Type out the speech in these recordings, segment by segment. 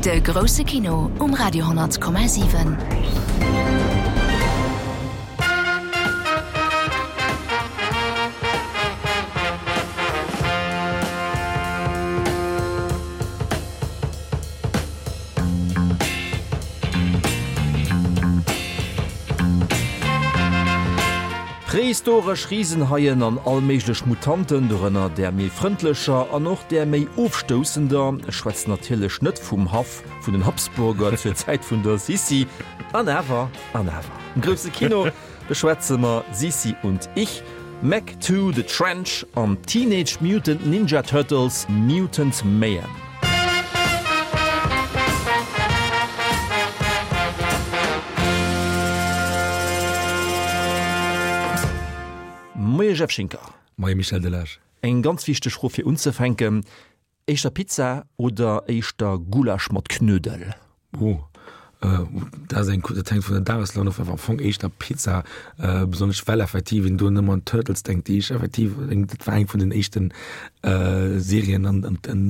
De grousse Kino um Radio 10,7. Prehistoresch Risenhaien an all méiglech Mutanten, dorënner där méi frëndlecher an och där méi ofstoussender, ech schwätzen natierlech net vum Haff vun den Habsburger zur Zäit vun der Sissi, an awer, an awer. Am grousse Kino beschwätze mer Sissi und ich, Meg 2, The Trench an Teenage Mutant Ninja Turtles, Mutant Mayhem. Moie Jeff Schinker. Moie Michel Delage. Eng ganz wichteg Fro fir unzefänken, Éischter Pizza oder éischter Gulasch mat Knödel? Oh, dat ass eng, dat hänkt vun der Dageslaun of, awer am Fong éischter Pizza, besonnesch well effektiv een do nëmmen un d'Turtles denkt, déi ech effektiv, dat war eng vun den éischten Serien an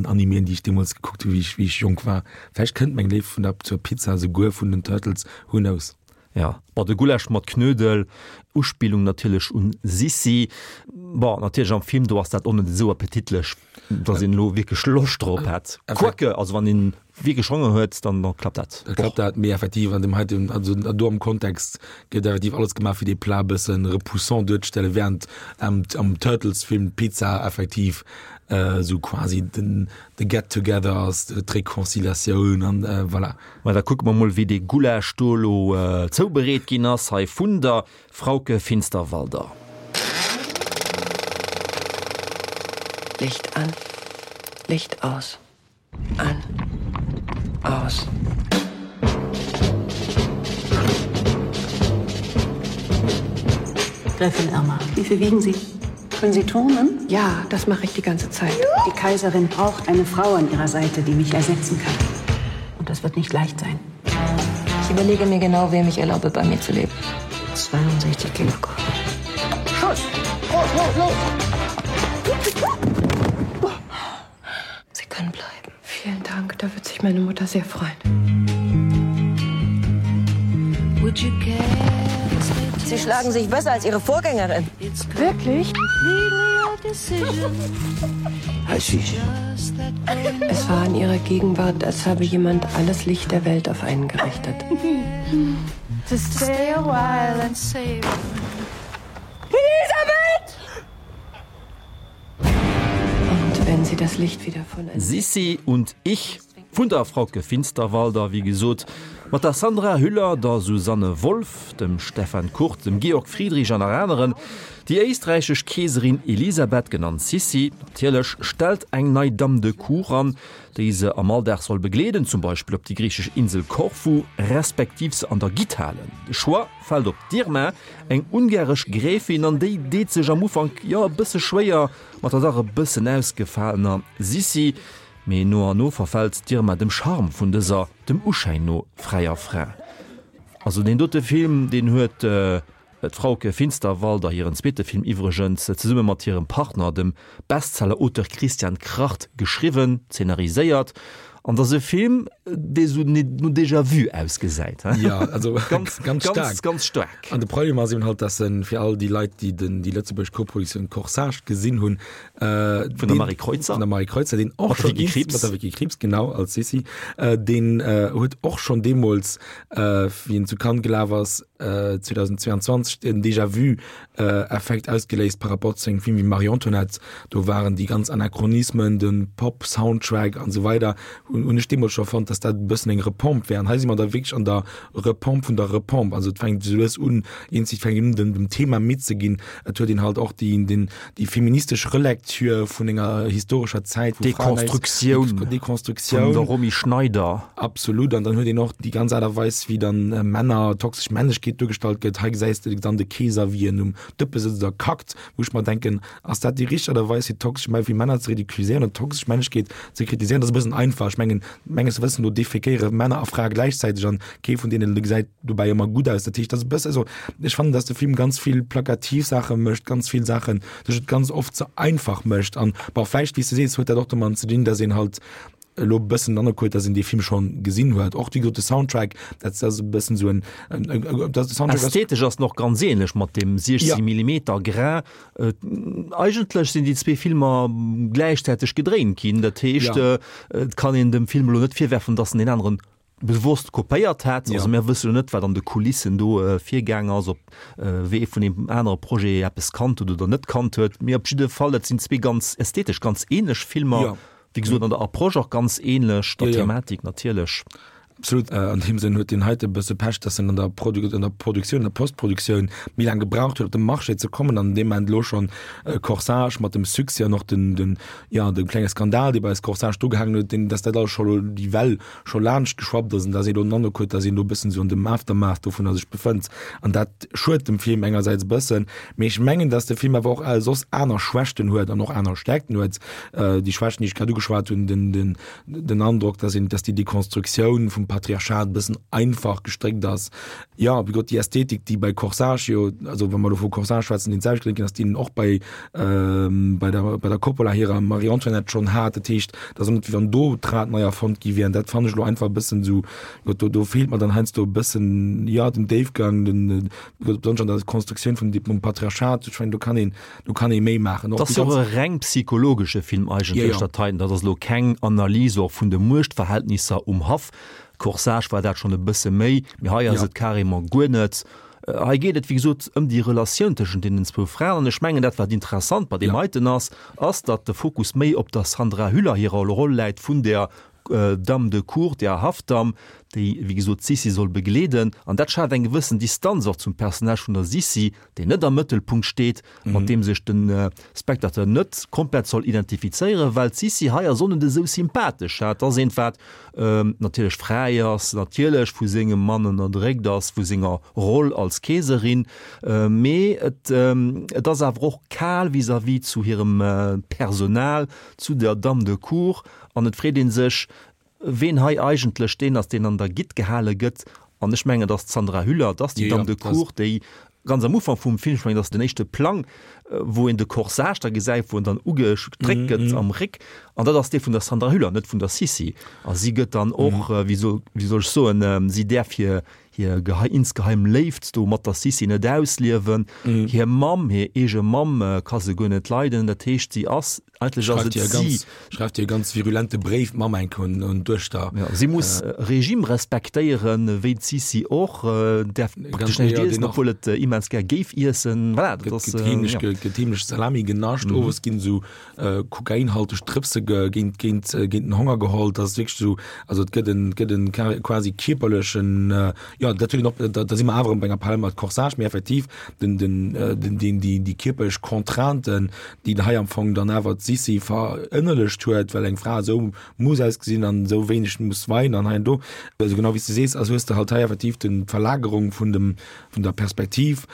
Animéen, déi ech deemools gekuckt hunn, wéi ech, wéi ech jonk war. Vläicht kënnt meng Léift vun der, zur Pizza esouguer vun den Turtles, who knows? Jo, bon, de Gulasch mat Knödel, Uspillung natierlech un Sissi. Bon, natierlech am Film, do ass dat och net esou appetitlech, dass een elo wierklech Loscht drop hätt. Quoique, also wann een wierklech Honger huet, dann klappt dat. Da klappt dat, mee effektiv an deem heiten, also do am Kontext gëtt effektiv alles gemaach, fir dee Plat e bësse repoussant duerzestellen, während am am Turtles-Film d'Pizza effektiv esou quasi den de Get-together ass, d'Reconciliatioun an voilà. Ma da kucke mer mol, wéi dee Gulasch do elo zoubereet ginn ass hei vun der Frauke Finsterwalder. Licht an, Licht aus, an, aus. Gräfin Irma, wie viel wiegen Sie? Können Sie turnen? Ja, das mache ich die ganze Zeit. Die Kaiserin braucht eine Frau an ihrer Seite, die mich ersetzen kann. Und das wird nicht leicht sein. Ich überlege mir genau, wem ich erlaube, bei mir zu leben. 62 Kilogramm. Schuss! Los, los, los! Sie können bleiben. Vielen Dank, da wird sich meine Mutter sehr freuen. Sie schlagen sich besser als ihre Vorgängerin. Wirklich? Es war in ihrer Gegenwart, als habe jemand alles Licht der Welt auf einen gerichtet. To stay a while and save. Elisabeth! Und wenn sie das Licht wieder von Sissi und ich vun der Frauke Finsterwalder, wéi gesot, mat der Sandra Hüller, der Susanne Wolf, dem Stefan Kurt, dem Georg Friedrich an nach aneren. Déi éisträichesch Keeserin Elisabeth, genannt Sissi natierlech, stellt eng nei Dame de Cour an, déi se am Alldag soll begleeden, zum Beispill op déi griichesch Insel Korfu, respektiv se an der Gitt halen. De Choix fält op d'Irma, Eng ungaresch Gräfin, an déi deet sech am Ufank jo e bësse schwéier mat der dach e bëssen ausgefalener Sissi, mee no an no verfält d'Irma dem Charme vun dëser, dem Uschäin no, fräier Fra. Also deen dote Film, deen huet d'Frauke Finsterwalder, hiren zweete Film iwwregens, zesumme mat hirem Partner, dem Bestseller-Auteur Christian Kracht, geschriwwen, zeenariséiert An dass e Film, dee sou no Déjà-vu ausgesäit, he? Ja, also ganz, ganz staark. Ganz, ganz staark. An de Problem ass eben halt, dass en fir all déi Leit, déi den, déi lëtzebuergesch Koproduktioun Corsage gesinn hunn, äh, Vun der Marie Kreutzer. Vun der Marie Kreutzer, deen och Mat der Vicky Krieps. Mat der Vicky Krieps, genau, als Sissi. Äh, deen äh, huet och schonn deemools, äh, wéi en zu Cannes gelaf ass, äh, 2022, den Déjà-vu Effekt ausgeléist par rapport zu engem Film wéi Marie Antoinette. Do waren déi ganz Anachronismen, de Pop-Soundtrack an esou weider hunn hunn ech deemools scho fonnt, dass dat e bëssen eng Repompe wär. An hei si mer da wierklech an der Repompe vun der Repompe. Also et fänkt esou lues un, eenzeg fänkt un dem dem Thema midd ze ginn. Et huet een halt och déi den déi feministesch Relecture vun enger historescher Zäit, wou Fraen näischt Dekonstruktioun Dekonstruktioun vun der Romy Schneider. Absolut. An dann huet een och déi ganz Aart a Weis, wéi dann Männer, toxesch Männlechkeet duergestallt gëtt. Hei gesäis de dann de Keeser, wéi en um Dëppe sëtzt a kackt, wou ech mer denken, ass dat déi richteg Aart a Weis, fir toxesch Mä fir Männer ze ridiculiséieren oder toxesch Männlechkeet ze kritiséieren? Dat ass e bëssen einfach. Ech mengen, menges Wëssen no defekéiere Männer a Frae gläichzäiteg an kee vun deenen gesäit dobäi ëmmer gutt aus. Dat heescht, dat ass e bësse, also ech fannen, datt de Film ganz vill plakativ Saache mécht, ganz vill Saachen, sech et ganz oft ze einfach mécht. An bon, vläicht, wéi s de sees, huet dat och domat ze dinn, datt een halt. elo e bëssen den Androck huet, dass een dee Film schonn gesinn huet. Och wéi gesot de Soundtrack, dat ass e bëssen esou en, dat de Soundtrack ass. Ästhetesch ass en och ganz ähnlech mat deem 16 Millimeter Grain. Eigentlech sinn déi zwee Filmer gläichzäiteg gedréint ginn. Dat heescht, et kann een dem Film elo net virwerfen, dass en deen aneren bewosst kopéiert hätt. Also mir wësse jo net, wat an de Kulissen do virgaang ass, ob wee vun deem anere Projet eppes kannt huet oder net kannt huet. Mee op jidde Fall, dat sinn zwee ganz ästhetesch ganz ähnlech Filmer, wéi gesot an der Approche och ganz ähnlech, der Thematik natierlech. Absolut. An deem Sënn huet deen heite e bësse Pech, dass en an der an der Produktioun, an der Postproduktioun méi laang gebraucht huet, op de Marché ze kommen an deem Moment elo schonn Corsage mat dem Succès an och den, den, jo, de klenge Skandal, dee bei Corsage do gehaangen huet, deen, dass dat alles scho elo déi Well scho laanscht geschwappt ass an dass ee elo den Androck huet, dass een do e bëssen esou an dem Aftermath dovunner sech befënnt. An dat schued dem Film engersäits e bëssen, mee ech mengen, dass de Film awer och soss aner Schwächten huet an och aner Stärkten huet. Déi Schwächten, déi ech grad ugeschwat hunn, den, den, den Androck, dass een, dass déi Dekonstruktioun vum Patriarchat e bëssen einfach gestréckt ass. Jo, wéi gesot, déi Ästhetik, déi bei Corsage jo, also wa mer elo vu Corsage schwätzen, deen d'selwecht geléngt ginn ass, déi en och bei, bei der, bei der Coppola hirer Marie-Antoinette schonn hat. Dat heescht, et ass och net, wéi wann do d'Rad nei erfonnt gi wier. An dat fannen ech elo einfach e bëssen esou, jo, do, do feelt mer dann heiansdo e bëssen, jo, den Déifgang, den, besonnesch an der Konstruktioun vum, vum Patriarchat. Ech mengen, do kann een, do kann ee méi maachen. Dat ass jo och e reng psychologesche Film eigentlech, dat heiten. Dat ass elo keng Analys och vun de Muechtverhältnisser um Haff. Corsage war dat schonn e bësse méi, mee hei ass et carrément guer net. Hei geet et, wéi gesot, ëm déi Relatioun tëschent deenen zwou Fraen. An ech mengen, dat wat interessant bei deem heiten ass, ass, datt de Fokus méi op der Sandra Hüller hirer Roll läit vun der Dame de Cour, der Haffdamm, déi, wéi gesot, d'Sissi soll begleeden. An dat schaaft eng gewëssen Distanz och zum Personnage vun der Sissi, deen net am Mëttelpunkt steet, mat deem sech de Spectateur net komplett soll identifizéieren, well d'Sissi hei ass och net esou sympathesch. Dat ass eent, wat natierlech fräi ass, natierlech vu sengem Mann ënnerdréckt ass, vu senger Roll als Keeserin, mee et et ass awer och kal vis-à-vis zu hirem Personal, zu der Dame de Cour an et freet ee sech, Ween hei eigentlech deen ass, deen an der Gitt gehale gëtt, an ech mengen, et ass d'Sandra Hüller, et ass déi Dame de Cour, déi ganz am Ufank vum Film, ech mengen, et ass den éischte Plang, wou een de Corsage da gesäit, wou en dann ugestréckt gëtt am Réck, an dat ass dee vun der Sandra Hüller, net vun der Sissi. A si gëtt dann och, wéi soll, wéi soll ech soen, si däerf hir, hir gehei, insgeheim Léift do mat der Sissi net ausliewen. Hir Mamm, hir eege Mamm ka se guer net leiden, dat heescht, si ass Eigentlech ass et si. Schreift hir e ganz virulente Bréif, d'Mamm enk un d'Duechter. Ja, si muss Regime respektéieren, wéi d'Sissi och, däerf praktesch näischt iessen, obwuel et immens gär géif iessen. Voilà, dat ass. Gëtt heemlech, gëtt heemlech Salami genascht, owes ginn esou kokainhalteg Drëpse géint, géint, géint den Honger geholl. Dat ass wierklech esou, also et gëtt en, gëtt en quasi kierperlechen, jo, dat huet een och, da si mer awer erëm bei enger Parallel mat Corsage, mee effektiv den, den, den, deen, déi, déi kierperlech Contrainten, déi hei am Fong dann awer d'Sissi verënnerlecht huet, well eng Fra esou muss ausgesinn an esou wéineg muss weinen an hei an do. Also genau wéi s de sees, also hues de halt hei effektiv den, d'Verlagerung vun dem, vun der Perspektiv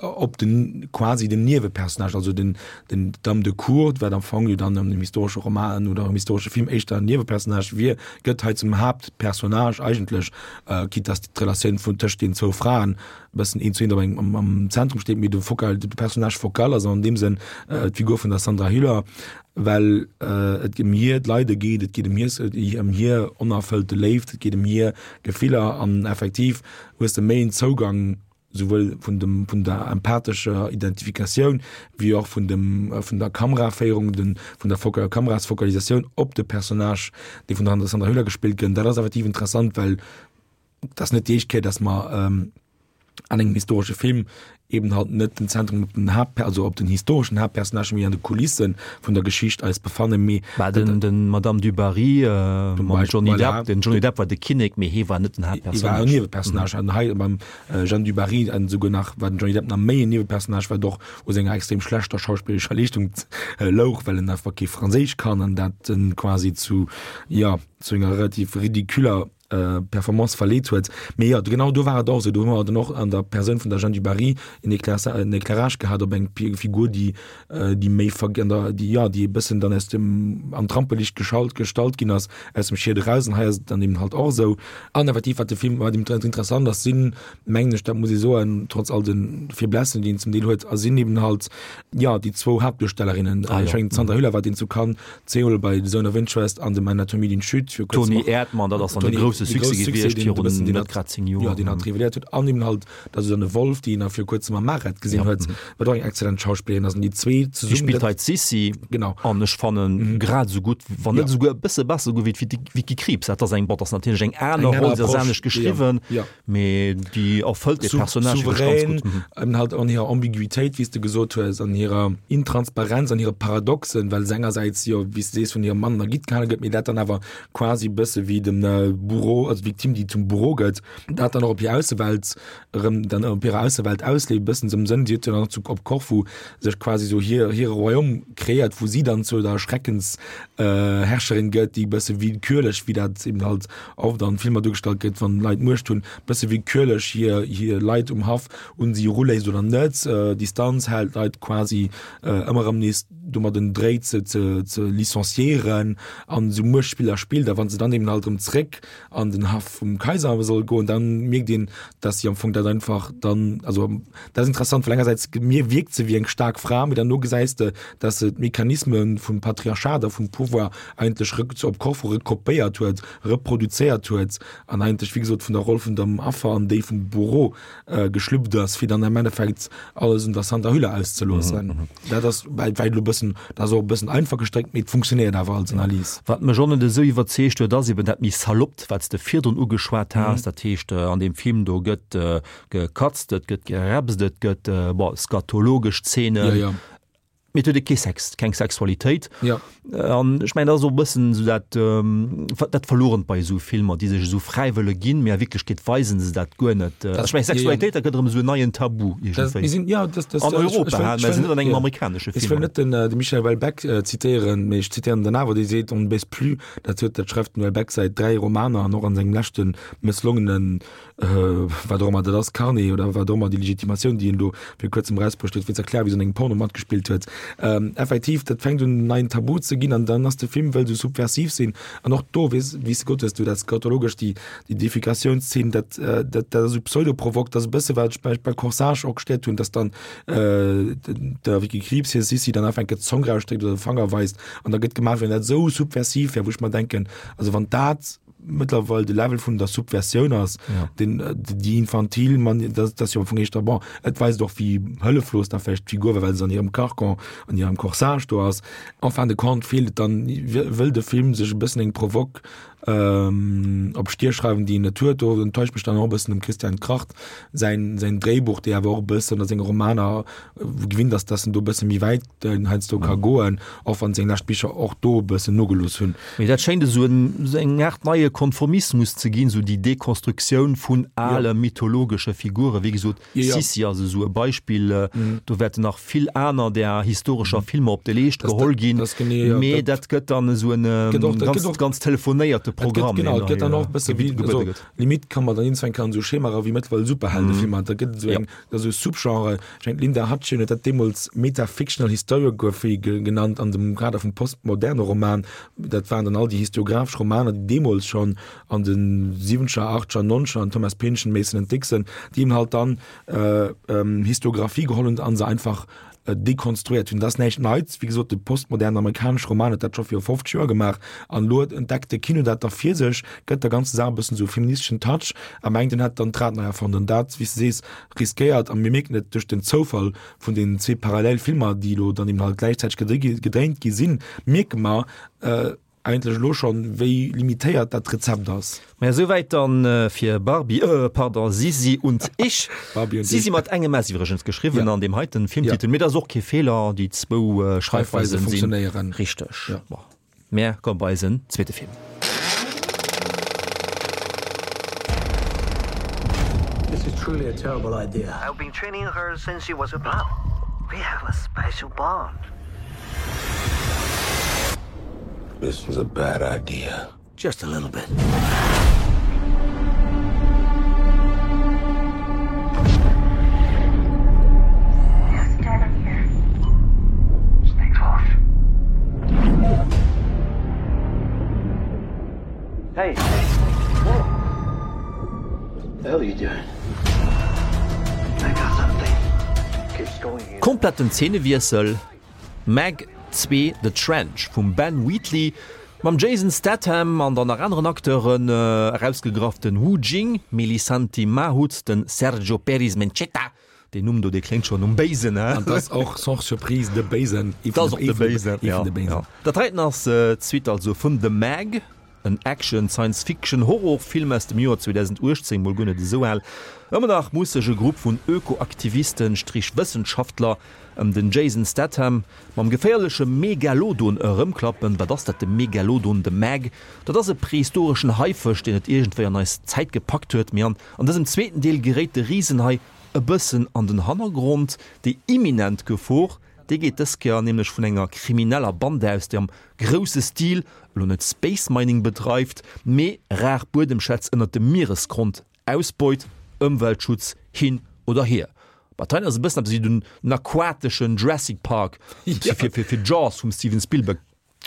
op den, quasi den Niewepersonnage, also den, den, d'Dame de Cour, wat am Fong jo dann an dem historesche Roman oder am historesche Film éischter en Niewepersonnage wier, gëtt hei zum Haaptpersonnage eigentlech, quitte dass d'Relatioun vun tëscht den zwou Fraen bëssen een zu een dobäi am, am Zentrum steet, mee de Focal, de Personnage focal ass an deem Sënn äh, d'Figur vun der Sandra Hüller, well äh, et ëm hir d'Leide geet, et geet ëm hir, ëm hir onerfëllte Léift, et geet ëm hir Gefiller an effektiv hues de méi en Zougang souwuel vun dem, vun der empathescher Identifikatioun wéi och vun dem, vun der Kameraféierung, den, vun der Foka, Kamerasfokalisatioun op de Personnage, dee vun der Sandra Hüller gespillt gëtt. Dat ass effektiv interessant, well Et ass net déi éischt Kéier, dass mer an engem historesche Film eben halt net den Zentrum op den Haupt, also op den historeschen Haaptpersonnagen, mee an de Kulisse vun der Geschicht eis befannen. Mee Bah, den, den Madame du Barry äh, mam Johnny voilà. Depp, den Johnny Depp war de Kinnek, mee hee war net den Haaptpersonnage. Hie war en Niewepersonnage. An hei beim äh, Jeanne du Barry an souguer nach war den Johnny Depp nach méi en Niewepersonnage, wat och u senger extrem schlechter schauspillerescher Leeschtung äh, louch, well en einfach kee Franséisch kann an dat en quasi zu, ja, zu enger relativ ridiculer. Performance verleet huet. Mee jo, genau do war et och esou, do hu mer dann och an der Persoun vun der Jeanne du Barry en en Éclairage gehat op eng Figur, déi déi méi an der, déi, jo, déi e bëssen dann aus dem, an d'Rampeliicht geschalt, gestallt ginn ass, aus dem Schied eraus. An hei ass et dann eben halt och esou. An effektiv, wat de Film, wat interessant ass, sinn, mengen ech, dat muss ee soen, trotz all de Faiblesse, déi en zum Deel huet, a sinn eben halt, jo, déi zwou Haaptduerstellerinnen. Ah, ech mengen, d'Sandra Hüller war deen zu Cannes zweemol bei The Zone of Interest an dem Anatomie d'une Chute. Fir kuerz Toni Erdmann, dat ass dann de grousse Succès gewiescht virun net grad 10 Joer. Jo, deen hatt révéléiert huet. An eben halt der Susanne Wolff, déi een nach viru kuerzem am Maret gesinn huet, wat och eng exzellent Schauspillerin ass. An déi zwee zesumme. Déi spillt hei d'Sissi. Genau. An ech fannen grad esou gutt, wann net esouguer e bësse besser esouguer wéi d'Vicky Krieps. Dat ass eng, bon, dat ass natierlech eng aner Roll, se ass anescht geschriwwen. Mee déi erfëllt dee Personnage wierklech ganz gutt. Souverän, halt an hirer Ambiguitéit, wéi s de gesot hues, an hirer Intransparenz, an hire Paradoxen, well se engersäits jo, wéi s de sees, vun hirem Mann ergitt gehale gëtt, mee dat dann awer quasi e bësse wéi dem Bourreau, also d'Victime, déi zum Bourreau gëtt, dat dann och op hir Aussewelt erëm dann op hirer Aussewelt ausleeft, e bëssen esou am Sënn, si huet jo dann och zu op Korfu sech quasi esou hir hire Royaume kreéiert, wou si dann zu der Schreckens Herrscherin gëtt, déi e bësse willkürlech, wéi dat eben halt oft an Filmer duergestallt gëtt, wann Leit Muecht hunn, e bësse willkürlech hir hir Leit um Haff un si eruléisst oder net, Distanz hält, Leit quasi ëmmer erëm nees domadden dréit se ze ze licenciéieren an esou Muechtspiller spillt. A wann se dann eben halt erëm zréck an den Haff vum Kaiser soll goen, dann mierkt een, dass si am Fong dat einfach dann, also dat ass interessant, well engersäits mir wierkt se wéi eng staark Fra, mee derno gesäis de, dass se d'Mechanisme vum Patriarchat a vum Pouvoir eigentlech rëck op Korfu rekopéiert huet, reproduzéiert huet an eigentlech, wéi gesot, vun der Roll vun dem Affer an déi vum Bourreau geschlüpft ass, fir dann am Endeffekt alles un der Sandra Hüller auszeloossen. Dat ass well elo e bëssen, dat ass och e bëssen einfach gestréckt, mee et funktionéiert awer als Analys. Wat mech och net esou iwwerzeegt huet, ass eben dat méi Saloppt, wat s de virdrun ugeschwat has. Dat heescht, an deem Film do gëtt gekatzt, et gëtt gerepst, et gëtt, bon, skatologesch Zeenen. Mee et huet e kee Sex, keng Sexualitéit. Ja. An ech mengen, dat ass och e bëssen esou dat, dat Verlorent bei esou Filmer, déi sech esou fräi wëlle ginn, mee a Wierklechkeet weisen se dat guer net. Ech mengen, Sexualitéit, dat gëtt erëm esou en neien Tabu iergendwéi. Mir sinn, ja, das, das, an Europa, ich, ich, mä sinn net an engem amerikanesche Film. Ech wëll net den, de Michel Houellebecq zitéieren, mee ech zitéieren den awer, dee seet, On ne baise plus. Dat huet, dat schreift den Houellebecq säit 3 Romaner an och an sengem leschte mësslongenen wat och ëmmer dat ass, Carnet oder wat och ëmmer, déi Legitimatioun, déi en do fir kuerzem erausbruecht huet, fir ze erklären, wéi se an engem Porno matgespillt huet. Effektiv, dat fänkt un en neien Tabu ze ginn an dann ass de Film wëll esou subversiv sinn an och do, weess, wéi s de gesot hues, du dat skatologesch, déi, déi Defekatiounszeen, dat, dat, dat ass esou pseudo-provok, dat ass e bësse wat ech bei, bei Corsage och gestéiert hunn, dass dann der Vicky Krieps hir Sissi dann einfach enke d'Zong rausstréckt oder de Fanger weist an da gëtt gemaach, wéi wann dat esou subversiv wär, wou ech mer denken, also wann dat mëttlerweil de Level vun der Subversioun ass, ja. den, äh, déi infantil man dat, dat jo am Fong éischter bon. Et weist och wéi hëlleflos da vläicht d'Figur war, well se an hirem Carcan, an hirem Corsage do ass. En fin de compte feelt et dann, wëll de Film sech e bëssen eng Provoque ähm, op d'Stier schreiwen, déi en net huet. Do enttäuscht mech dann och e bëssen dem Christian Kracht säin, säin Dréibuch, dee awer och e bëssen a senge Romaner gewinnt ass, dass en do e bësse méi wäit heiansdo ka goen, och wann seng lescht Bicher och do e bëssen nogelooss hunn. Mee dat schéint esou eng Aart neie Konformismus ze ginn, esou déi Dekonstruktioun vun ale mythologesche Figuren. Wéi gesot, Sissi ass esou e Beispill. Do wäerten nach vill aner där historescher Filmer op de Leescht geholl ginn. Mee dat gëtt dann esou en ganz, ganz telefonéierte Programm, deen da gebuede gëtt. Limite kann man dann iergendwann kann esou Schemaer wéi mëttlerweil Superheldefilmer, da gëtt et esou eng, esou Subgenre. Ech mengen d'Linda Hutcheon huet dat deemools Metafictional Historiography genannt an dem Kader vum postmoderne Roman. Dat waren dann all déi historiographesch Romaner, déi deemools schonn an de siwwenzeger, achteger, nonzeger, an Thomas Pynchon, Mason and Dixon, déi eben halt dann Historiographie geholl hunn an se einfach dekonstruiert hunn. Dat ass näischt Neits. Wéi gesot, de postmodernen amerikanesche Roman huet dat scho viru 50 Joer gemaach an elo entdeckt de Kino dat da fir sech, gëtt der ganzer Saach e bëssen esou e feministeschen Touch a mengt, en hätt dann d'Rad nei erfonnt. An dat, wéi s de sees, riskéiert, a mir mierken et duerch den Zoufall vun den zwee parallel Filmer, déi elo dann eben halt gläichzäiteg gedréint gi sinn, mierke mer eigentlech elo schonn, wéi limitéiert dat Rezept ass. Maja, souwäit dann fir Barbie, euh pardon, Sisi und ich. Barbie und Sisi ich. Mat engem S iwwregens geschriwwen Ja. an deem heiten Filmtitel. Ja. Mee dat ass och kee Feeler, déi zwou Schreifweise Schreifweisen sinn funktionéieren. richteg. Ja. Bon, mär komme bei eisen zweete Film. This is truly a terrible idea. I've been training her since she was a pup. We have a special bond. This was a bad idea. Just a little bit. Hey. The hell are you doing? I got something. Keeps going here. Kompletten Zeenewiessel, Meg 2, The Trench vum Ben Wheatley mam Jason Statham an dann nach aneren Acteuren, erausgegraff den Wu Jing, Melisanti Mahut, den Sergio Peris-Mencheta, Deen Numm do, dee kléngt schonn nom Béisen, he? An 't ass och sans surprise de Béisen, ee vun de Béisen, ee vun de Béisen. Dat heiten ass d'Suite also vun The Meg, en Action Science-Fiction Horrorfilm aus dem Joer 2018, mol guer net esou al. Ëmmer nach muss sech e Grupp vun Ökoaktivisten, Strich Wëssenschaftler, ëm den Jason Statham mam geféierleche Megalodon erëmklappen. Wat ass dat, de Megalodon, The Meg? Dat ass e prehistoreschen Haifësch, deen et iergendwéi an eis Zäit gepackt huet. Mee an dësem zweeten Deel geréit de Risenhai e bëssen an den Hannergrond. Déi imminent Gefor, déi geet dës Kéier nämlech vun enger krimineller Bande aus, déi am grousse Stil elo net Space Mining bedreift, mee rar Buedemschätz ënnert dem Mieresgrond ausbeut. Ëmweltschutz hin oder hier, ma d'hei ass e bëssen eppes wéi den aquateschen Jurassic Park fir Jaws vum Steven Spielberg.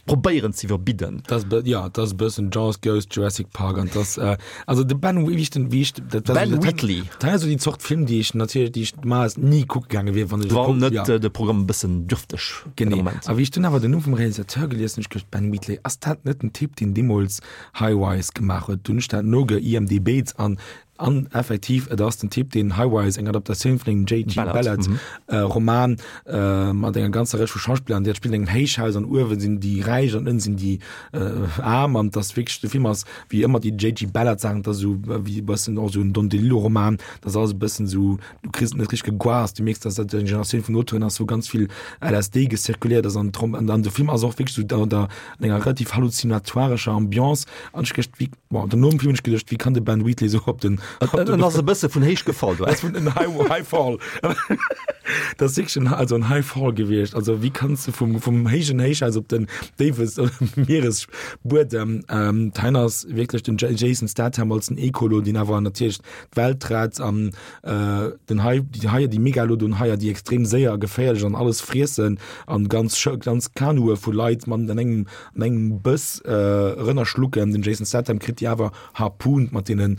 probéieren ze iwwerbidden. Dat ass, ja, dat ass e bëssen Jaws, Ghost, Jurassic Park an dat, äh, also de Ben, wéi ech den, wéi ech, dat war Ben dat, Wheatley. Dat ass esou déi Zort Film, déi ech natierlech, déi ech normalerweis ni kucke gaange wier, wann ech Wann net ja. de Programm e bëssen dürfteg Genee. A wéi ech dunn awer den Numm vum Realisateur gelies hunn, ech geduecht, Ben Wheatley, ass dat net den Typ, deen deemools High Rise gemaach huet? Dunn hunn ech dat noge IMDb't an An effektiv, et ass den Typ, deen High Rise, eng Adaptatioun vun engem JG. Ballard Roman mat enger ganzer Rëtsch vu Schauspiller, an déi spillen an engem Héichhaus an uewe sinn déi Räich an ënne sinn déi Aarm. An et ass wierklech, de Film ass wéi ëmmer déi JG. Ballard Saachen, et ass esou wéi e bëssen och esou en Don DeLillo Roman, et ass alles e bëssen esou, du kriss et net richteg geguast, du mierks, dass dat eng Generatioun vun Auteuren ass, wou ganz vill LSD gezirkuliert ass an an de Film ass och wierklech esou an der an enger relativ halluzinatoirescher Ambiance an ech gëscht wéi Bon, dann nom Film hunn ech geduecht, wéi kann de Ben Wheatley sou op den. En ass e bësse vun héich gefall do. Ass vun en High, High Fall. Dat ass wierklech en, also en High Fall gewiescht. Also wéi kanns de vum, vum héijen Héichhaus op den déiwe Mieresbuedem. Ähm, d'Hein ass wierklech den Jason Statham als den Ecolo, deen awer natierlech d'Welt rett an äh, den Hai, déi Haier, déi Megalodon-Haier, déi extrem séier a geféierlech an alles friessen an ganz, ganz Kanue vu Leit mat an engem an engem Bëss erënnerschlucken. Den Jason Statham kritt déi awer harpooned mat deenen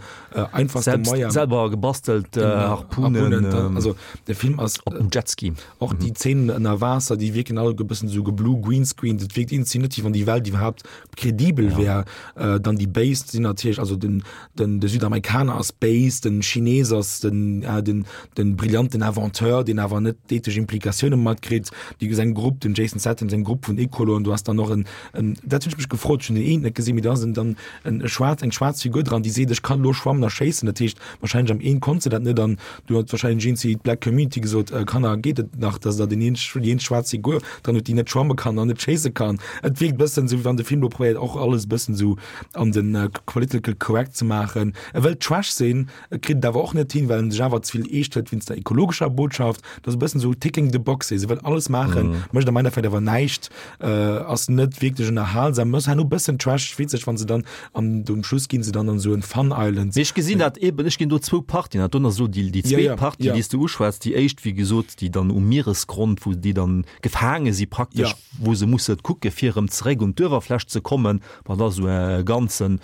einfachste Moyen. Selwer gebastelt Harpunen. Also de Film ass op dem Jetski. Och déi Zeenen ënner Waasser, déi wierken all e bëssen esou geblue greenscreened. Et wierkt iergendwéi net, wéi wann déi Welt iwwerhaapt kredibel wär. Dann déi Béis sinn natierlech, also den Den de Südamerikaner ass béis, den Chines ass den äh, den den brillanten Inventeur, deen awer net d'ethesch Implikatioune matkritt. Déi seng Grupp, den Jason Statham seng Grupp vun Ecoloen, du has dann och en en dat hunn ech mech gefrot, ech hunn den eent net gesinn, mee do ass en dann en e schwaarz eng schwaarz Figur dran, déi seet, ech kann elo schwammen a schéissen. Dat heescht wahrscheinlech am een konnt se dat net an du huet wahrscheinlech een zu d'Black Community gesot, äh, Kanner geet et nach, dass der den een déi eenzeg schwaarz Figur dran hutt, déi net schwamme kann an net schéisse kann. Et wierkt bëssen esou, wéi wann de Film elo probéiert och alles e bëssen esou an den political correct ze maachen. E wëllt Trash sinn, e kritt et awer och net hin, well en sech awer ze vill eescht hëlt wéinst der ekologescher Botschaft. Dat ass e bëssen esou ticking the boxes, e wëll alles maachen, mécht am Endeffekt awer näischt, ass net wierklech ënnerhalsam, ass herno e bëssen trash, witzeg, wann se dann an um Schluss ginn se dann an esou en Fun Island. Mee ech gesinn dat eben, ech ginn do zwou Partien, dat do ass elo déi zweet Partie, déi s de uschwätz, déi éischt, wéi gesot, déi dann um Mieresgrond, wou déi dann gefaange si praktesch, wou se musse kucke fir erëm zeréck un d'Uewerfläch ze kommen. Wat ass esou e ganzen,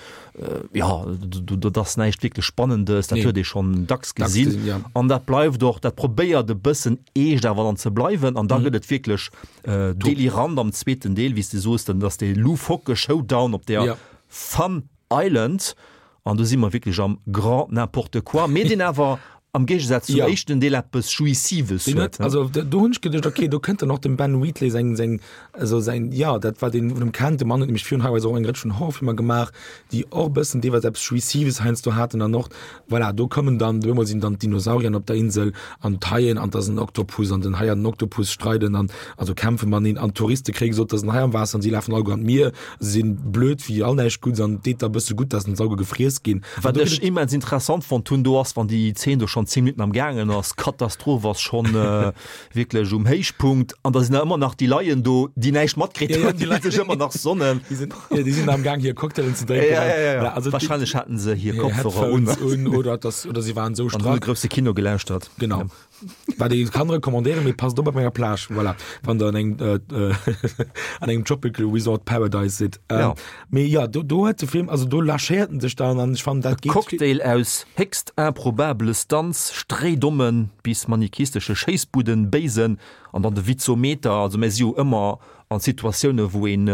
jo, dat ass näischt wierklech Spannendes, dat huet ee schonn dacks gesinn. An dat bleift och, dat probéiert e bëssen eescht awer dann ze bleiwen. An da gëtt et wierklech delirant am zweeten Deel, wéi s de soos, dann ass dee loufoque Showdown op där Fun Island. An do si mer wierklech am grand n'importe quoi, mee deen awer am Géigesaz zum éischten Deel eppes Jouissives huet. Also do hunn ech geduecht, okay, do kënnt dann och dem Ben Wheatley seng, seng, also säin, jo, dat wat een vun him kennt. De Mann huet nämlech virun High Rise och eng Rëtsch vun Horrorfilmer gemaach, déi och e bëssen deelweis eppes Jouissives heiansdo haten. An och, voilà, do kommen dann, op eemol sinn dann d'Dinosaurier op der Insel an d'Haien an 't ass en Oktopus an den Hai an den Oktopus streiden an, also kämpfe mateneen an d'Touriste kréie gesot, 't ass en Hai am Waasser an si lafen alleguer an d'Mier. Se sinn blöd wéi all näischt Gudds an et deet da bësse gutt, dass en Sauge gefriess ginn. Wat ech immens interessant fonnt hunn do ass, wann déi Zeen do schonn. schonn 10 Minutten am gaangen ass, d'Katastroph ass schonn wierklech um Héichpunkt an da sinn der ëmmer nach déi Leien do, déi näischt matkritt hunn, déi sech ëmmer nach sonnen. Déi sinn, ja, déi sinn am Gaang hir Cocktailen ze drénken. Ja, ja, ja, ja. Also, Wahrscheinlech haten se hir Kopfhörer un. un oder, das, oder si waren sou strack. An hunn de grousse Kino gelauschtert. Genau. Ja. Wat ee kann recommandéieren, mee passt op op enger Plage, voilà, wann der an engem, äh, an engem Tropical Resort Paradise sidd. Ähm, ja. Mee ja, do, do huet de Film, also do lâchéiert en sech dann an ech fannen dat geet. Cocktail aus héchst improbabele Stunts, stréidommen bis manikistesche Schéissbuden, Béisen an dann de Witzometer. Also mir si jo ëmmer an Situatioune wou een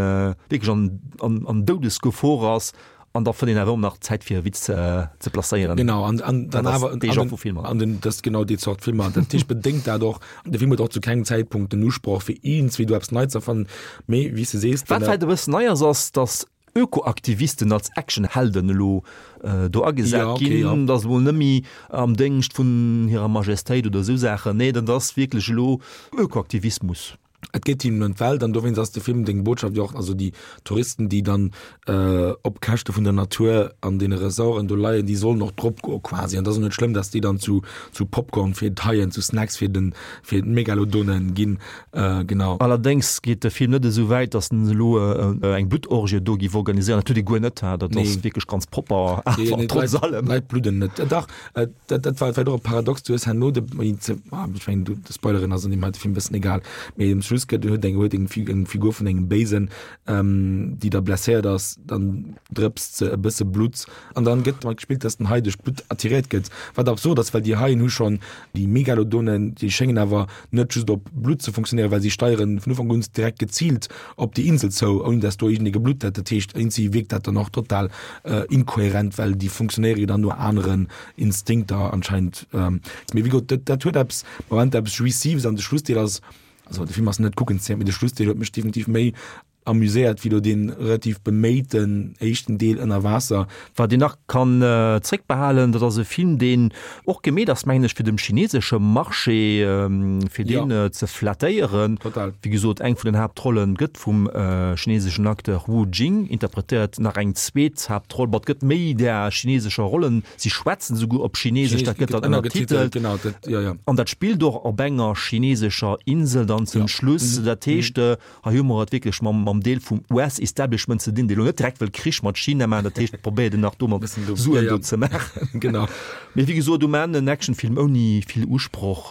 wierklech an, an, an Doudesgefor ass an da fënnt een awer ëmmer nach Zäit fir e Witz ze placéieren. Genau, an, an dann awer dee Genre vu Filmer. An den, dat ass genau déi Zort Filmer. Dat heescht bedéngt dat och, de Film huet och zu kengem Zäitpunkt den Usproch fir iergendswéi do eppes Neits ze erfannen, mee wéi s de sees, Wat vläicht e bëssen nei ass, ass datt Ökoaktivisten als Actionhelden elo do agesat ja, okay, ginn, ja. Dat ass emol net méi am Déngscht vun hirer Majestéit oder esou Saachen. Nee, dat ass wierklech elo Ökoaktivismus. Et geet hinnen ëm d'Welt an dowéinst ass de Film deng Botschaft jo och, also déi Touristen, déi dann äh, op Käschte vun der Natur an deene Resorten do leien, déi sollen och drop goe quasi. An dat ass och net schlëmm, datt déi dann zu, zu Popcorn fir d'Haien, zu Snacks fir den, fir d'Megalodonen ginn. Äh, genau. Allerdéngs geet de Film net esou wäit, datt en elo eng Bluttorgie do géif organiséieren. Dat huet e guer net, dat ass wierklech ganz propper, awer trotz allem. D'Leit bludden net. Dach, dat, dat war vläicht och e Paradox, du hues herno de, ah, ech mengen, du, de Spoileren ass an deem heite Film e bëssen egal, mee um Schluss gëtt, huet eng, huet eng, eng Figur vun engem Béisen, ähm, déi da blesséiert ass, dann drëpst se e bësse Blutt an dann gëtt domat gespillt, dass den Hai duerch d'Blutt attiréiert gëtt, wat absurd ass, well déi Haien hu schonn déi Megalodonen, déi schéngen awer net just op Blutt ze funktionéieren, well si steieren vun Ufank un direkt geziilt op déi Insel zou, ouni dass do iergendee geblutt hätt. Dat heescht, iergendwéi wierkt dat dann och total inkohärent, well déi funktionéiere jo dann no aneren Instinkter anscheinend. Mee wéi gesot, dat, dat huet eppes, Moment eppes Jouissives an de Schlussdeel ass, also de Film ass net kuckenswäert, mee de Schlussdeel huet mech definitiv méi amuséiert wéi do dee relativ beméiten éischten Deel ënner Waasser. Wat een nach kann zréckbehalen, dat ass e Film, deen och gemeet ass, mengen ech, fir dem chinesesche Marché, fir deen ze flattéieren. Total. Wéi gesot, eng vun den Haaptrollen gëtt vum chineseschen Acteur Wu Jing interpretéiert, nach eng zweet Haaptroll, bon, et gëtt méi där chinesescher Rollen, si schwätzen esouguer op Chinesesch, dat gëtt dann ënnertitelt. Genau, dat, jo, jo. An dat spillt och op enger chinesescher Insel dann zum Schluss. Dat heescht, Hei hu mer et wierklech mam, mam Deel vum US-Establishment ze dinn, dee lo net direkt wëll Krich mat China maachen. Dat heescht, probéiert en nach do mat Suen do ze maachen. Genau. Mee wéi gesot, um Enn en Actionfilm ouni vill Usproch,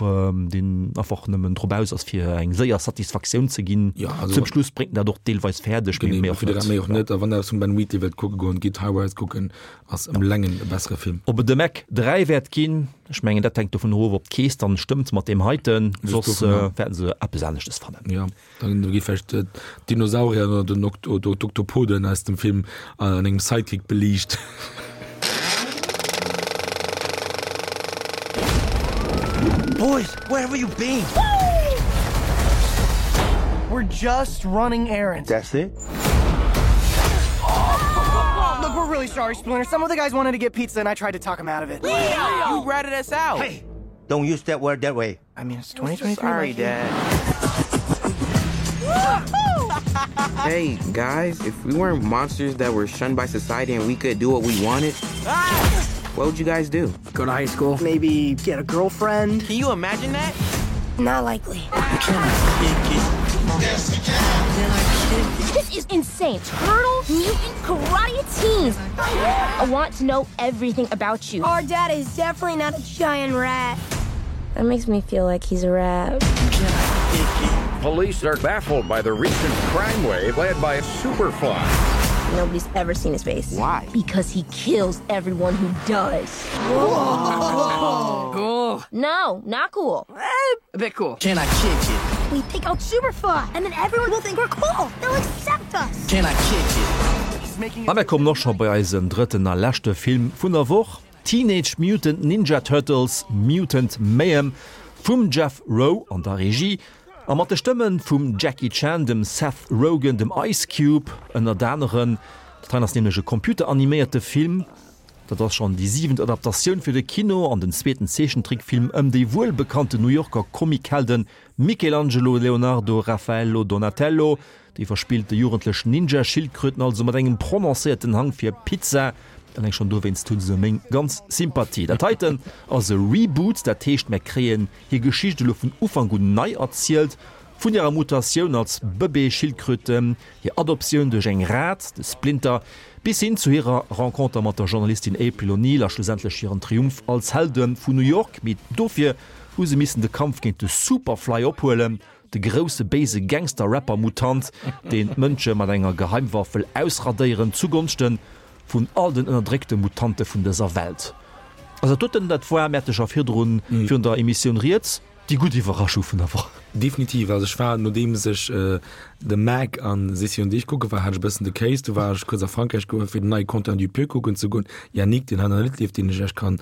deen einfach nëmmen drop aus ass, fir eng séier Satisfaktioun ze ginn. Ja, also. Zum Schluss bréngt en dat och deelweis fäerdeg, mee méi och net. Méi och net. A wann Der eppes vum Ben Wheatley wëllt kucke goen, gitt High Rise kucken. Ass ëm Längen e bessere Film. Ob et de Meg 3 wäert ginn, ech mengen dat hänkt dovun of, ob d'Keess dann stëmmt mat deem heiten, soss wäerten se eppes aneschtes fannen. Jo, dann gi vläicht d'Dinosaurier oder den oder d'Oktopoden aus dem Film an engem Sidekick beliicht. Boys, where have you been? We're just running errands. That's it? Look, we're really sorry, Splinter. Some of the guys wanted to get pizza and I tried to talk them out of it. Leo! You ratted us out. Hey, don't use that word that way. I mean, it's 2023. Sorry, Dad. hey, guys, if we weren't monsters that were shunned by society and we could do what we wanted, what would you guys do? Go to high school. Maybe get a girlfriend. Can you imagine that? Not likely. Yes, you can. This is insane. Turtle mutant karate teens. I want to know everything about you. Our dad is definitely not a giant rat. That makes me feel like he's a rat. Police are baffled by the recent crime wave led by Superfly. Nobody's ever seen his face. Why? Because he kills everyone who does. Whoa. Cool. No, not cool. Eh, a bit cool. Can I kick it? We take out Superfly and then everyone will think we're cool. They'll accept us. Can I kick it? A mir kommen och scho bei eisen drëtten a leschte Film vun der Woch, Teenage Mutant Ninja Turtles, Mutant Mayhem vum Jeff Rowe an der Regie a mat de Stëmme vum Jackie Chan, dem Seth Rogen, dem Ice Cube ënnert aneren. Dat heien ass nämlech e computeraniméierte Film. Dat ass schonn déi siwent Adaptatioun fir de Kino an den zweeten Zeechentrickfilm ëm déi wuelbekannten New Yorker Comichelden Michelangelo, Leonardo, Raffaello, Donatello. Déi verspillte jugendlech Ninja-Schildkröten also mat engem prononcéierten Hang fir Pizza. Alleng schonn dowéinst hu se meng ganz Sympathie. Dat heiten ass e Reboot, dat heescht mär kréien hir Geschicht elo vun Ufank un nei erzielt, vun hirer Mutatioun als Bëbee-Schildkröte, hir Adoptioun duerch eng Rat, de Splinter, bis hin zu hirer Renconter mat der Journalistin April O'Neil a schlussendlech hiren Triumph als Helde vun New York. Mee dofir hu se missen de Kampf géint de Superfly ophuelen, de grousse béise Gangster-Rapper-Mutant, deen d'Mënsche mat enger Geheimwaff wëll ausradéieren, zugonschte vun all den ënnerdréckte Mutante vun dëser Welt. Also dat doten, dat war, mir hate scho virdrun, virun der Emissioun rieds, déi gutt Iwwerraschung vun der Woch. Definitiv. Also ech war, nodeems ech The Meg an Sissi und ich kucke war, hat ech e bëssen de Kéis. Du war ech kuerz a Frankräich goe fir den neie Quentin Dupieux kucken ze goen, Yannick, deen hei nach net leeft, deen ech iech kann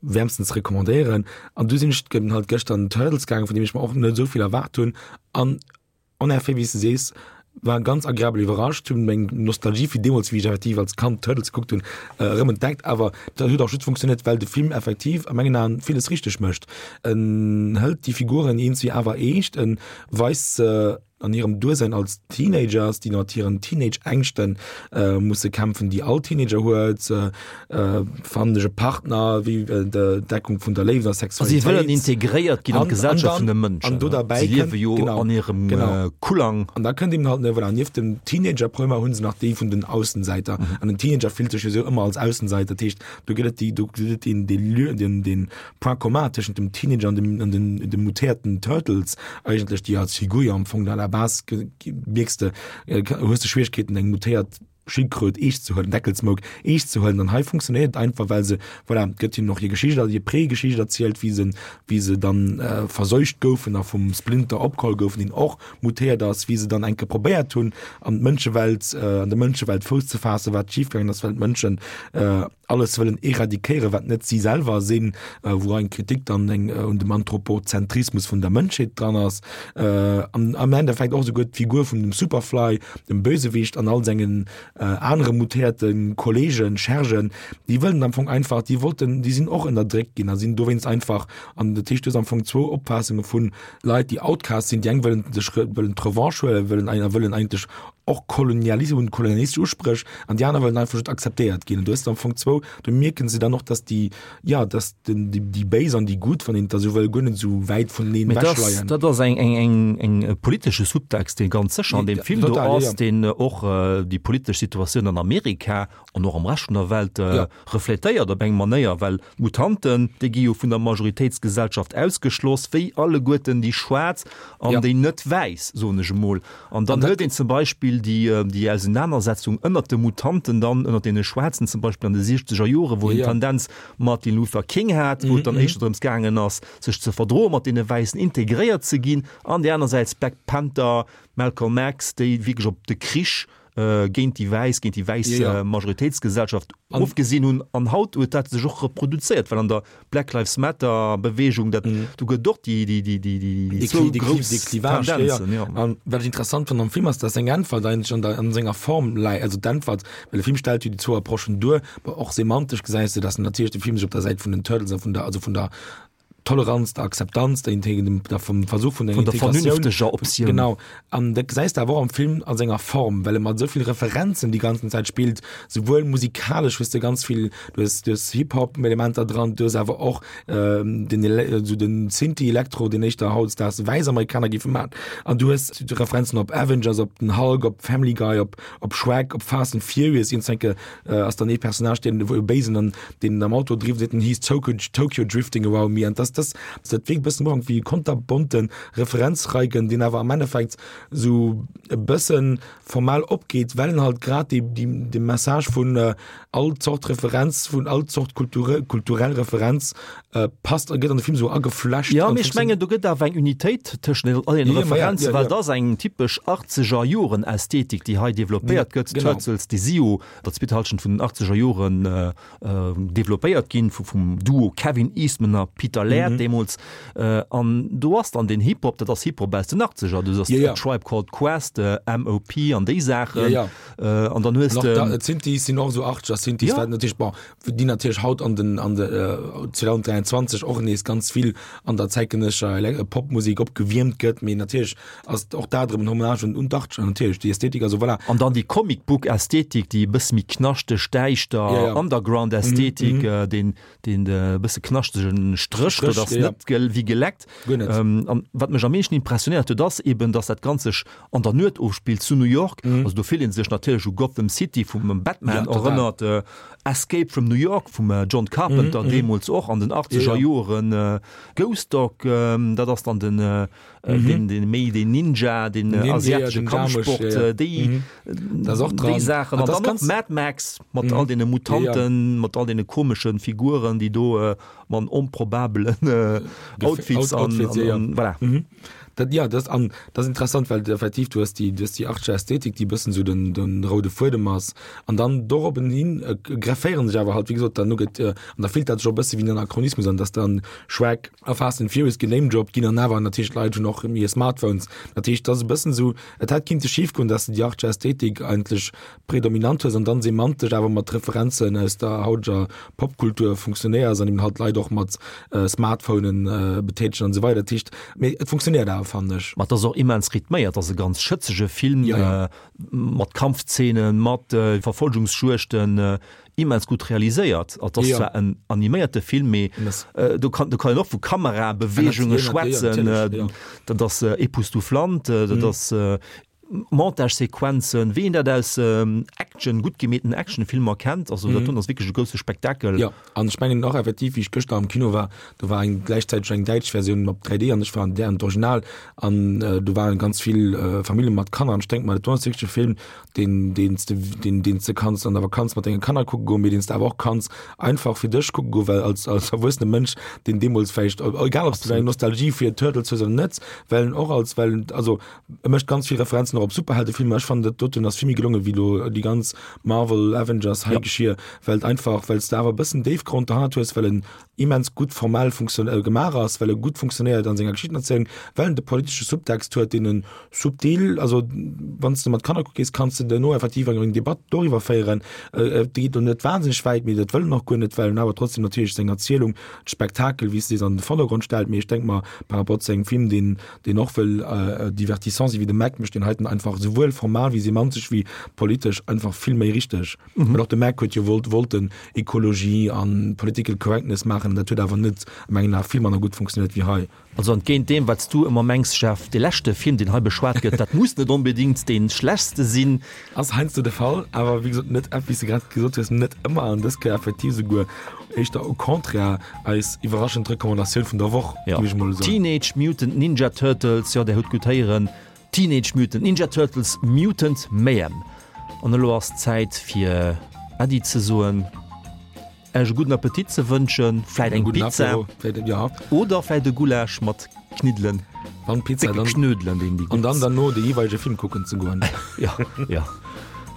wäermstens recommandéieren. An du sinn ech halt gëschter an den Turtles gaangen, vun deem ech mer och net esou vill erwaart hunn. An en effet, wéi s de sees, war ganz agreabel iwwerrascht, hunn meng Nostalgie fir deemools, wéi ech effektiv als Kand Turtles gekuckt hunn, erëm entdeckt. Awer dat huet och just funktionéiert, well de Film effektiv a mengen Aen villes richteg mécht. En hëlt déi Figuren eenzi awer eescht, en weist se an hirem Duersein als Teenagers, déi mat hiren Teenage-Ängschte musse kämpfen, déi all Teenager huet, Fannen ech e Partner, wéi d'Entdeckung vun der Léift a Sexualitéit. Si wëllen integréiert ginn an d'Gesellschaft vun de Mënschen. An do derbäi Si liewe jo an hirem Kullang. An da kënnt eben halt, voilà, nieft dem Teenager-Problemer hu se nach déi vun den Aussensäiter. An den Teenager fillt sech jo sou ëmmer als Aussensäiter. Dat heescht, do gëtt et déi, do gëtt et deen, dee Lieu, deen, deen Point commun tëschent dem Teenager an dem, an den, de mutéierten Turtles eigentlech, déi als Figur jo am Fong à la base mierks de, hues de Schwieregkeeten eng mutéiert Schildkröt eescht ze huelen, Deckelsmouk eescht ze huelen. An hei funktionéiert et einfach, well se, voilà, et gëtt hinnen och hir Geschicht, hir Pré-Geschicht erzielt, wéi se, wéi se dann verseucht goufen a vum Splinter opgeholl goufen, deen och mutéiert ass, wéi se dann eng Kéier probéiert hunn, an d'Mënschewelt, an der Mënschewelt Fouss ze faassen, wat schifgaangen ass, well d'Mënschen alles wëllen eradikéieren, wat net si selwer sinn, wou eng Kritik dann eng un dem Anthropozentrismus vun der Mënschheet dran ass. An am Endeffekt och esouguer d'Figur vun dem Superfly, dem Bösewicht an all sengen anere mutéierte Kollegen, Schergen, déi wëllen am Fong einfach, déi wollten, déi sinn och ënnerdréckt ginn a sinn dowéinst einfach, an dat heescht, du hues am Fong zwou Opfaassunge vu Leit, déi Outcasts sinn, déi eng wëllen sech wëllen d'Revanche huelen, wëllen a wëllen eigentlech och Kolonialismus, hunn kolonialistesch Uspréch, an déi aner wëllen einfach just akzeptéiert ginn. An du hues am Fong zwou, do mierken se dann och, dass déi, jo, dass den, déi, déi Béis an déi Gutt, wann een et da sou wëll, guer net esou wäit vuneneen Mee dat ass, ewechleien. dat ass eng, eng, eng, eng e politesche Subtext, dee ganz sécher an deem Film do Total, jo, ass, jo. deen och déi politesch Situatioun an Amerika an och am Rescht vun der Welt Ja. refletéiert op eng Manéier, well d'Mutanten, déi gi jo vun der Majoritéitsgesellschaft ausgeschloss, wéi alleguerten déi Schwaarz an Ja. déi net Wäiss, soen ech emol. An dann An dat huet een zum Beispill déi, déi Ausenanersetzung ënnert de Mutanten dann, ënnert deene Schwaarzen zum Beispill an de siechzeger Joren, wou Ja, een ja. Tendenz Martin Luther King hat, wou et dann éischter drëms gaangen ass, sech ze verdroe mat deene Wäissen, integréiert ze ginn, an déi anersäits Black Panther, Malcolm X, déi wierklech op de Krich géint déi wäiss, géint déi wäiss Ja, ja. Majoritéitsgesellschaft An- ofgesinn hunn. An haut huet dat sech och reproduzéiert, well an der Black Lives Matter Beweegung, dat, do gëtt och déi, déi, déi, déi, déi Déi zwou Kli- déi Kli- grouss déi Clivage, ja, ja. Tendenzen, ja. An wat ech interessant fannen am Film ass, dass seng Äntwert eigentlech an der, an senger Form läit, also d'Äntwert, well de Film stellt jo déi zwou Approchen duer, ma och semantesch gesäis de, dass natierlech de Film sech op der Säit vun den Turtles a vun der, also vun der Toleranz, der Akzeptanz, der Integ der vum Versuch vun der Vun der Integratioun. vernünfteger Optioun. Genau. An dat gesäis de awer och am Film a senger Form, well e mat esou vill Referenzen déi ganzen Zäit spillt, souwuel musikalesch hues de ganz vill, du hues, du hues Hip-Hop-Elementer dran, du hues awer och den Ele esou den Synthi-Elektro, deen éischter hautdesdaags wäiss Amerikaner géife maachen. An du hues Referenzen op Avengers, op den Hulk, op Family Guy, op op Shrek, op Fast and Furious, iergendwenke ass dann ee Personnage, deen e Béisen an deen am Auto driwwer seet, he's Tokyo, Tokyo drifting around me. An das, das, dat wierkt e bëssen am Ufank wéi e konterbonte Referenzreigen, deen awer am Endeffekt sou e bëssen formal opgeet, well en halt grad déi, déi, de Message vun all Zort Referenz, vun all Zort Kulture, kulturell Referenz passt a gëtt an de Film sou ageflecht. Jo, mee ech mengen, do gëtt awer eng Unitéit tëschent all deene Referenzen, well et ass eng typesch Achtzeger-Joren-Ästhetik, déi hei developpéiert gëtt. D'Turtles, déi si jo der zweeter Hallschent vun den Achtzeger Joren developpéiert ginn, vum Duo Kevin Eastman a Peter Laird. Äerd deemools. An do ass dann den Hip-Hop, dat ass Hip-Hop aus den Achtzeger, du ass Tribe Called Quest, MOP an déi Saachen. An dann hues de. D'Synthies sinn och esou Achtzeger Synthies, wat natierlech, bon, déi natierlech haut an den an de 2023 och nees ganz vill an der zäitgenëssescher Popmusek opgewiermt gëtt, mee natierlech ass och dat erëm en Hommage un un d'Achtzeger natierlech, déi Ästhetik, also voilà. An dann déi Comic-Book-Ästhetik, déi e bësse méi knaschteg, däischter Underground-Ästhetik, deen deen e bësse knaschtegen Stréch, dat ass net wéi geleckt. Guer net. An wat mech am meeschten impressionéiert huet, ass eben, dass dat Ganzt sech an der Nuet ofspillt zu New York. Also do fillt ee sech natierlech u Gotham City vum Batman erënnert, Escape from New York vum John Carpenter deemools och an den achtzeger Joren, Ghost Dog, dat ass dann den den, den méi den Ninja, den asiatesche Kampfsport, déi déi Saachen. An dann och Mad Max mat all deene Mutanten, mat all deene komeschen Figuren, déi do mat onprobabelen Outfits an voilà. Dat, ja, dat an dat ass interessant, well effektiv du hues déi, du hues déi artsche Ästhetik, déi e bëssen esou den, den roude Fuedem ass. An dann doroppenhin hin grefféieren sech awer halt, wéi gesot, dann no gëtt an da fillt dat sech och e bësse wéi en Anachronismus an, dass dann Shrek a Fast and Furious genamedroppt ginn an awer natierlech d'Leit hunn och hir Smartphones. Dat heescht, et ass e bëssen esou, et hätt kinnte schif goen, dass de déi artsche Ästhetik eigentlech predominant hues an dann semantesch awer mat Referenzen aus der hauteger Popkultur funktionéiers an eben halt d'Leit och mat Smartphonen betätegen an esou weider. Dat heescht, mee et funktionéiert awer, fannen ech. Ma et ass och immens rhythméiert, et ass e ganz schëtzege Film mat Kampfzeenen, mat Verfolgungsjuegten, immens gutt realiséiert. Et ass zwar en animéierte Film, mee do kann do kann een och vu Kamerabeweegunge schwätzen. Dat ass époustouflant, dat ass Montagesequenzen, wéi een dat aus Action, gutt gemeeten Actionfilmer kennt. Also dat doen ass wierklech e grousse Spektakel. Jo, an ech mengen och effektiv, wéi ech gëschter am Kino war, do war eng gläichzäiteg eng däitsch Versioun op 3D an ech war an där an d'Original an do waren ganz vill Famillje mat Kanner an ech denke mer, dat do ass wierklech e Film, deen deen s de deen deen s de kanns an der Vakanz mat denge Kanner kucke goen, mee deen s de awer och kanns einfach fir dech kucke goen, well als als erwuessene Mënsch, deen deemools vläicht, egal ob s du eng Nostalgie fir Turtles hues oder net, well en och als well en also e mécht ganz vill Referenzen och op Superheldefilmer. Ech fannen dat doten ass vill méi gelonge wéi elo déi ganz Marvel Avengers Haigeschier, well et einfach well s de awer e bëssen Déifgrond derhannert hues, well en immens gutt formell gemaach ass, well e gutt funktionéiert an senger Geschichtenerzielung, well en de politesche Subtext huet, deen en subtil, also wann s de mat Kanner kucke gees, kanns de duerno effektiv eng Debatt doriwwer féieren. Et geet elo net wahnsinneg wäit, mee dat wëll en och guer net, well en awer trotzdem natierlech seng Erzielung, de Spektakel, wéi s de sees, an de Vordergrond stellt. Mee ech denk mer, par rapport zu engem Film, deen, deen och wëll divertissant sinn, wéi de Meg, mécht deen heiten einfach esouwuel formal wéi semantesch wéi politesch einfach vill méi richteg. Well och de Mac huet jo wollt wollten Ekologie an Political Correctness maachen, dat huet awer net a mengen Ae vill manner gutt funktionéiert wéi hei. Also entgéint deem wat s du ëmmer mengs, Jeff, dee leschte Film deen hei beschwat gëtt, dat muss net onbedingt dee schlechtste sinn. Ass heiansdo de Fall, awer wéi gesot net, wéi s de grad gesot hues, net ëmmer an dës Kéier effektiv esouguer éischter au contraire eis iwwerraschend Recommandatioun vun der Woch, géif ech mol soen. Teenage Mutant Ninja Turtles, jo där hutt gutt héieren, Teenage Mutant Ninja Turtles Mutant Mayhem. An elo ass d'Zäit fir Äddi ze soen, Äech e gudden Appetit ze wënschen, vläit eng Pizza oder vläit e Gulasch mat Kniddelen, Wann Pizza, décke Knödelen, deen déi gutt. An dann derno de jeeweilege Film kucken ze goen. Jo, jo.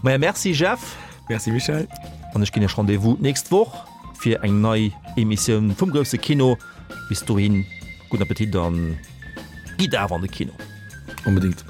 Maja, merci Jeff. Merci Michèle. An ech ginn Iech Rendez-vous d'nächst Woch fir eng nei Emissioun vum grousse Kino. Bis dohin, gudden Appetit an gitt awer an de Kino. Onbedéngt.